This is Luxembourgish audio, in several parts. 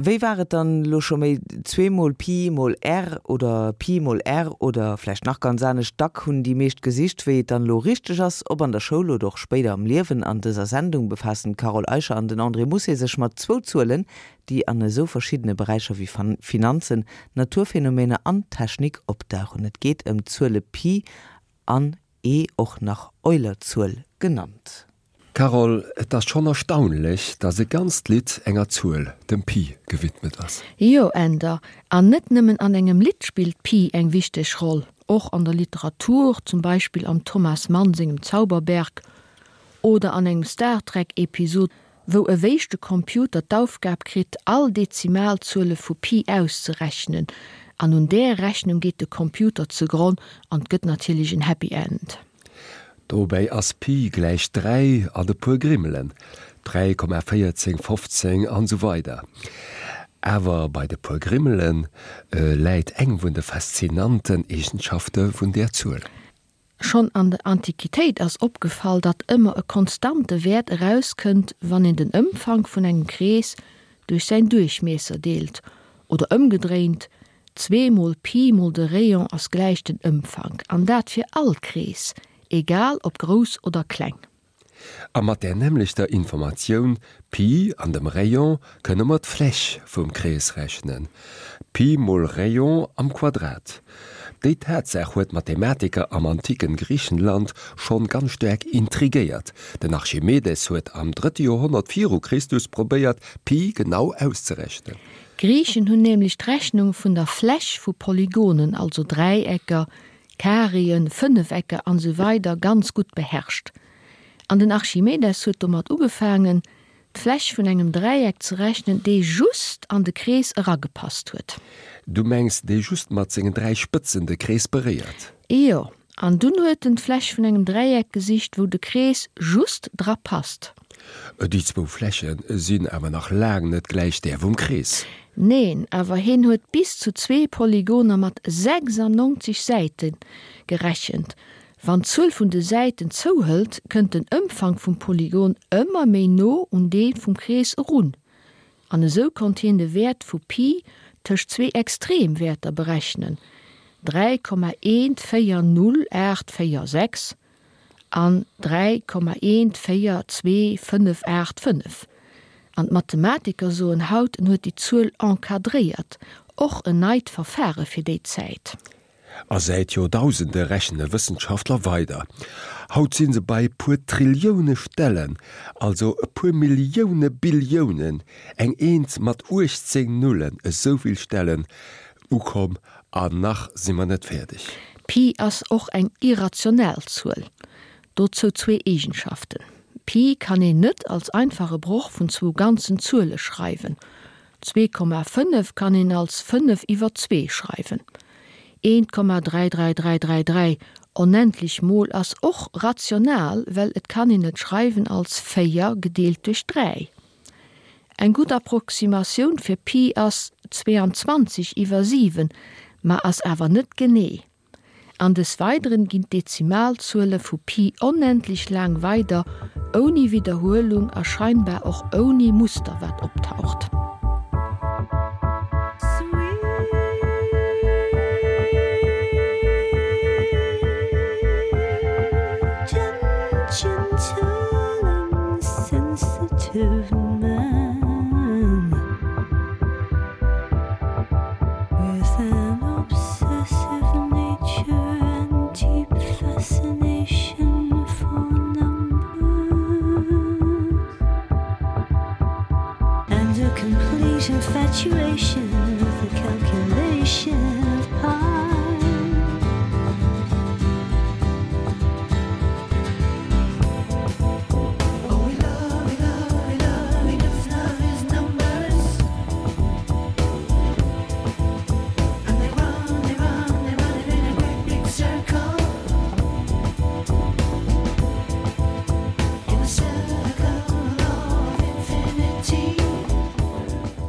Wéi war et dann elo scho méi? Zweemol Pi mol R oder Pi mol R oder vläicht nach ganz anescht? Dack hunn déi meescht gesicht, wéi et dann elo richteg ass, ob an der Schoul oder och spéider am Liewen. An dëser Sendung befaassen d'Carole Eicher an den André Mousset sech mat zwou Zuelen, déi an esou verschiddene Beräicher wéi Finanzen, Naturphänomener an Technik opdauchen. Et geet ëm d'Zuele Pi an E, och nach Eulerzuel genannt. Carole, et ass schonn erstaunlech, dass e ganzt Lidd enger Zuel, dem Pi, gewidmet ass. Jo, Änder, an net nëmmen an engem Lidd spillt Pi eng wichteg Roll, och an der Literatur, zum Beispill am Thomas Mann sengem Zauberberg oder an engem Star Trek Episod, wou e wéischte Computer d'Aufgab kritt, all Dezimalzuele vu Pi auszerechnen, an un där Rechnung geet de Computer zegronn an 't gëtt natierlech en Happy End. Dobäi ass Pi gläich 3 an e puer Grimmelen, 3,14, 15 an esou weider Awer bei de puer Grimmele läit eng vun de faszinanten Eegenschafte vun där Zuel. Schonn an der Antiquitéit ass opgefall, datt ëmmer e konstante Wäert erauskënnt, wann een den Ëmfank vun engem Krees duerch säin Duerchmiesser deelt, oder ëmgedréint, zweemol Pi mol de Rayon ass gläich den Ëmfank, an dat fir all Krees, egal ob grouss oder kleng. A mat där nämmlechter Informatioun, Pi an dem Rayon, kënne mer d'Fläch vum Krees rechnen, Pi mol Rayon am Quadrat. Déi Tatsaach huet d'Mathematiker am antiken Griichenland schonn ganz staark intrigéiert. Den Archimedes huet am drëtte Joerhonnert viru Christus probéiert, Pi genau auszerechnen. D'Griichen hunn nämlech d'Rechnung vun der Fläch vu Polygonen, also Dräiecker, Kareeën, Fënnefecker an esou weider ganz gutt beherrscht. An den Archimedes huet domat ugefaangen, d'Fläch vun engem Dräieck ze rechnen, dee just an de Krees eragepasst huet. Du mengs, dee just mat sengen 3 Spëtzen de Krees beréiert? Jo, an dunn huet en d'Fläch vun engem Dräieck gesicht, wou de Krees just dra passt. Déi zwou Fläche sinn awer nach laang net gläich där vum Krees. Neen, awer heen huet bis zu zwee Polygoner mat 96 Säite gerechent. Wann d'Zuel vun de Säiten zouhëlt, kënnt den Ëmfank vum Polygon ëmmer méi no un dee vum Krees erun. An esou konnt hien de Wäert vu Pi tëscht zwee Extremwäerter berechnen, 3,140846 an 3,142585. An d'Mathematiker soen haut, en huet déi Zuel encadréiert, och en neit Verfare fir déi Zäit. A säit Joerdausende rechne Wëssenschaftler weider. Haut si se bei e puer Trillioune Stellen, also e puer Millioune Billiounen, eng Eent mat 18 Nullen, esouvill Stellen ukomm An nach si mer net fäerdeg. Pi ass och eng irrational Zuel. Dozou zwee Eegenschaften, Pi kann een net als einfache Broch vun zwou ganzen Zuele schreiwen, 2,5 kann een als 5 iwwer 2 schreiwen. 1,33333 onendlech mol ass och rational, well et kann een et schreiwen als 4 gedeelt duerch 3. Eng gutt Approximatioun fir Pi ass 22 iwwer 7, ma ass awer net genee. An des Weideren ginn d'Dezimalzuele vu Pi onendlech laang weider, ouni Widderhuelung a scheinbar och ouni Muster wat optaucht.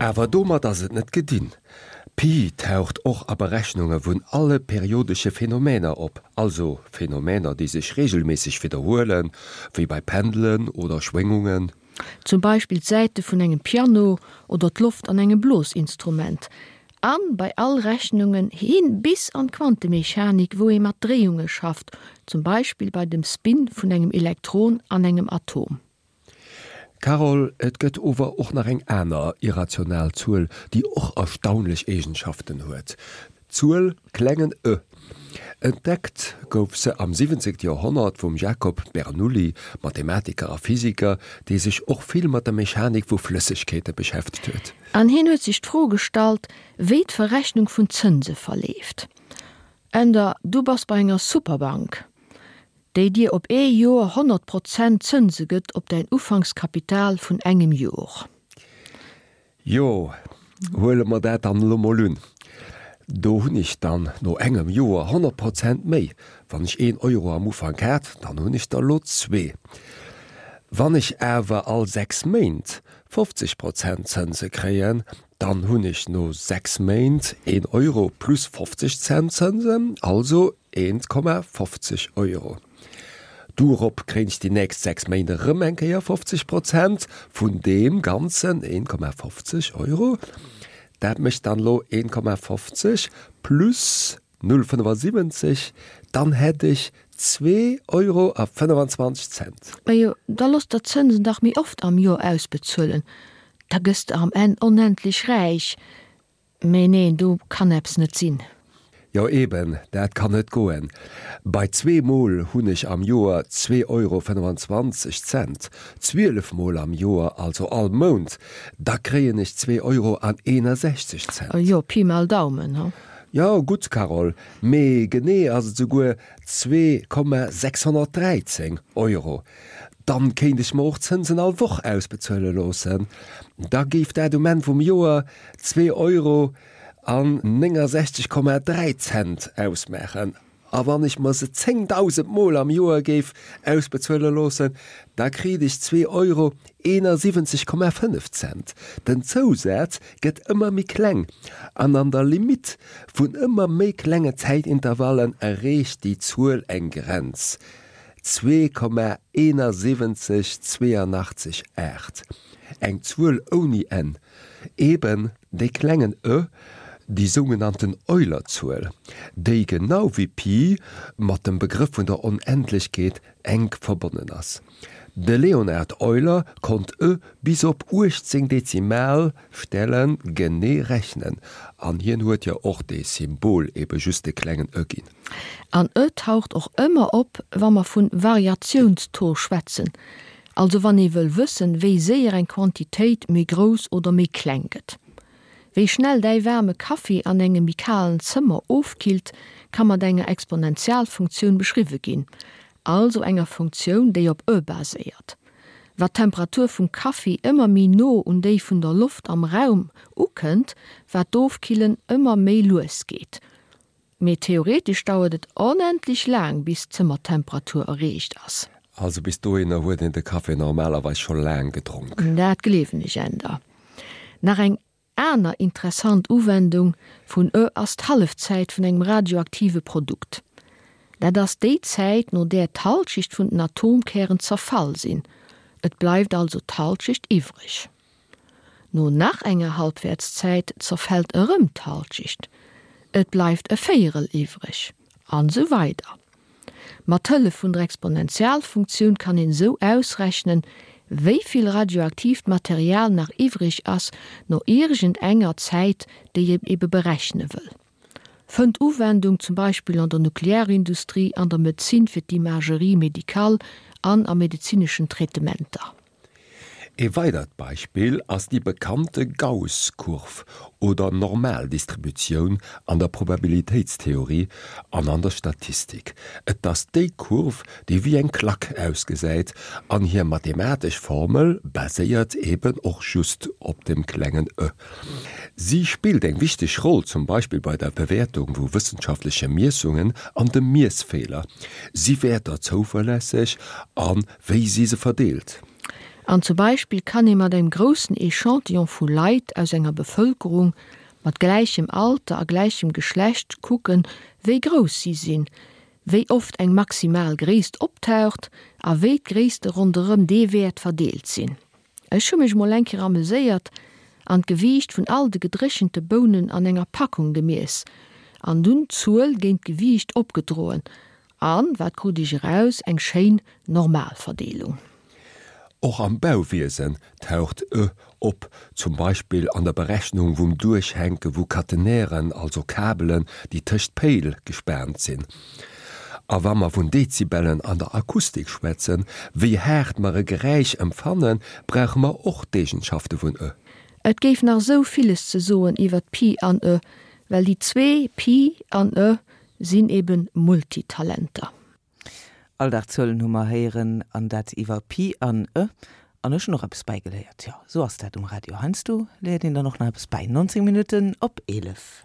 Awer domat ass et net gedinn. Pi taucht och a Berechnunge vun alle periodesche Phänomener op, also Phänomener déi sech reegelméisseg widderhuelen, wéi bei Pendelen oder Schwéngungen. Zum Beispill d'Säite vun engem Piano oder d'Loft an engem Blosinstrument. An bei all Rechnungen hin bis an d'Quantemechanik, wou ee mat Dréiunge schafft, zum Beispill bei dem Spin vun engem Elektron an engem Atom. Carole, et gëtt ower och nach eng aner irrational Zuel, déi och erstaunlech Eegenschaften huet, d'Zuel klengen e. Entdeckt gouf se am 17. Joerhonnert vum Jacob Bernoulli, Mathematiker a Physiker, dee sech och vill mat der Mechanik vu Flëssegkeete beschäftegt huet. An hien huet sech d'Fro gestallt, wéi d'Verrechnung vun Zënse verleeft. Änder, du bass bei enger Superbank, déi dir op ee Joer 100 Prozent Zënse gëtt op däin Ufankskapital vun engem Jor. Jo, huele mer dat dann elo mol un. Do hunn ech dann no engem Joer 100 Prozent méi. Wann ech een Euro am Ufank hat, dann hunn ech der elo zwee. Wann ech awer all 6 Méint 50 Prozent Zënse kréien, dann hunn ech no 6 Méint een Euro plus 50 Cent Zënsen, also 1,50 Euro. Dorop kréien ech déi nächst 6 Méint erëm eng Kéier 50 Prozent vun deem Ganzen, 1,50 Euro. Dat mécht dann elo 1,50 plus 0,75, dann hätt ech 2 Euro a 25 Cent. Majo, da looss der d'Zënsen dach méi oft am Joer ausbezuelen, da gëss de am Enn onendlech räich. Mee neen, do kann eppes net sinn. Jo eben, dat kann net goen. Bei zweemol hunn ech am Joer 2 Euro 25 Cent, 12 mol am Joer, also all Mount, da kréien ech 2 Euro an 61 Cent. Jo, Pi mal Daumen, he? Jo, gutt, Carole, mee genee ass et souguer 2,613 Euro. Dann kéint ech mer och d'Zënsen all Woch ausbezuele loossen. Da géif dat um Enn vum Joer 2 Euro an 69,3 Cent ausmaachen. A wann ech mer se 10.000 Mol am Joer géif ausbezuele loossen, da kriit ech 2 Euro 71,5 Cent. Den Zousaz gëtt ëmmer méi kleng an an der Limitt vun ëmmer méi klenge Zäitintervallen erreecht déi Zuel eng Grenz, 2,71828. Eng Zuel ouni Enn. Eben dee klengen e, déi sougenannten Euler-Zuel, déi genau wéi Pi mat dem Begrëff vun der Onendlechkeet enk verbonnen ass. De Leonhard Euler konnt e bis op 18 Dezimalstelle genee rechnen, an hien huet jo och dee Symbol ebe just de klengen e ginn. An e taucht och ëmmer op, wa mer vun Variatiounstaux schwätzen, Also wann ee wëll wëssen, wéi séier eng Quantitéit méi grouss oder méi kleng gëtt. Wéi schnell däi waarme Kaffi an engem méi kalen Zëmmer ofkillt, ka mat enger Exponentialfunktioun beschriwwe ginn, also enger Funktioun, déi op e baséiert. Wat d'Temperatur vum Kaffi ëmmer méi no un déi vun der Loft am Raum ukënnt, wat d'Ofkillen ëmmer méi lues geet. Mee theoretesch dauert et onendlech laang bis d'Zëmmertemperatur erreecht ass. Also bis dohinner huet een de Café normalerweis scho laang gedronk. Dat gleewen ech änder. Nach eng aner interessant Uwendung vun e ass d'Hallefzäit vun engem radioaktive Produkt. Dat ass déi Zäit no där d'Halschecht vun den Atomkären zerfall sinn, et bleift also d'Halschecht iwwreg. No nach enger Halbwertszäit zerfält erëm d'Halschecht, et bleift e Véierel iwwreg, an esou weider Mat Hëllef vun der Exponentialfunktioun kann een esou ausrechnen, wéi vill radioaktiivt Material nach iwwreg ass no iergend enger Zäit, déi een ebe berechne wëll. Fënnt Uwendung zum Beispill an der Nuklearindustrie, an der Medezin fir d'Imagerie médicale an a medezineschen Traitementer. Ee weidert Beispill ass déi bekannte Gauss-Kurv oder Normaldistributioun an der Probabilitéitstheorie an an der Statistik. Et ass déi Kurv, déi wéi eng Klack ausgesäit, an hir mathematesch Formel baséiert eben och just op dem klengen e. Si spillt eng wichteg Roll zum Beispill bei der Bewäertung vu wëssenschaftleche Miessungen an dem Miessfeeler. Si Wäerter zouverlässeg a wéi si se verdeelt? An zum Beispill kann ee mat engem groussen Echantillon vu Leit aus enger Bevëlkerung mat gläichem Alter a gläichem Geschlecht kucken, wéi grouss si sinn, wéi oft eng maximal Gréisst optaucht a wéi d'Gréisste ronderëm dee Wäert verdeelt sinn. Ech hu mech mol eng Kéier ameséiert an d'Gewiicht vun all de gedréchente Bounen an enger Packung gemiess an dunn d'Zuel géint d'Gewiicht opgedroen an, wat krut ech eraus, eng schéin Normalverdeelung. Och am Bauwiesen taucht e op, zum Beispill an der Berechnung vum Duerchhänke vu Catenairen, also Kabelen, déi tëscht Péil gespaant sinn. A wa mer vun Dezibellen an der Akustik schwätzen, wéi haart mer e Geräisch empfannen, brauche mer och d'Eegenschafte vun e. Et géif nach esou villes ze soen iwwert Pi an e, well déi zwee, Pi an e, sinn eben Multitalenter. Alldagzuelen hu mer héieren, an dat iwwer Pi an e. An ech hunn och eppes bäigeléiert. Jo, esou ass dat um Radio. Heiansdo léiert een dann och nach eppes bäi. 19 Minutten op 11.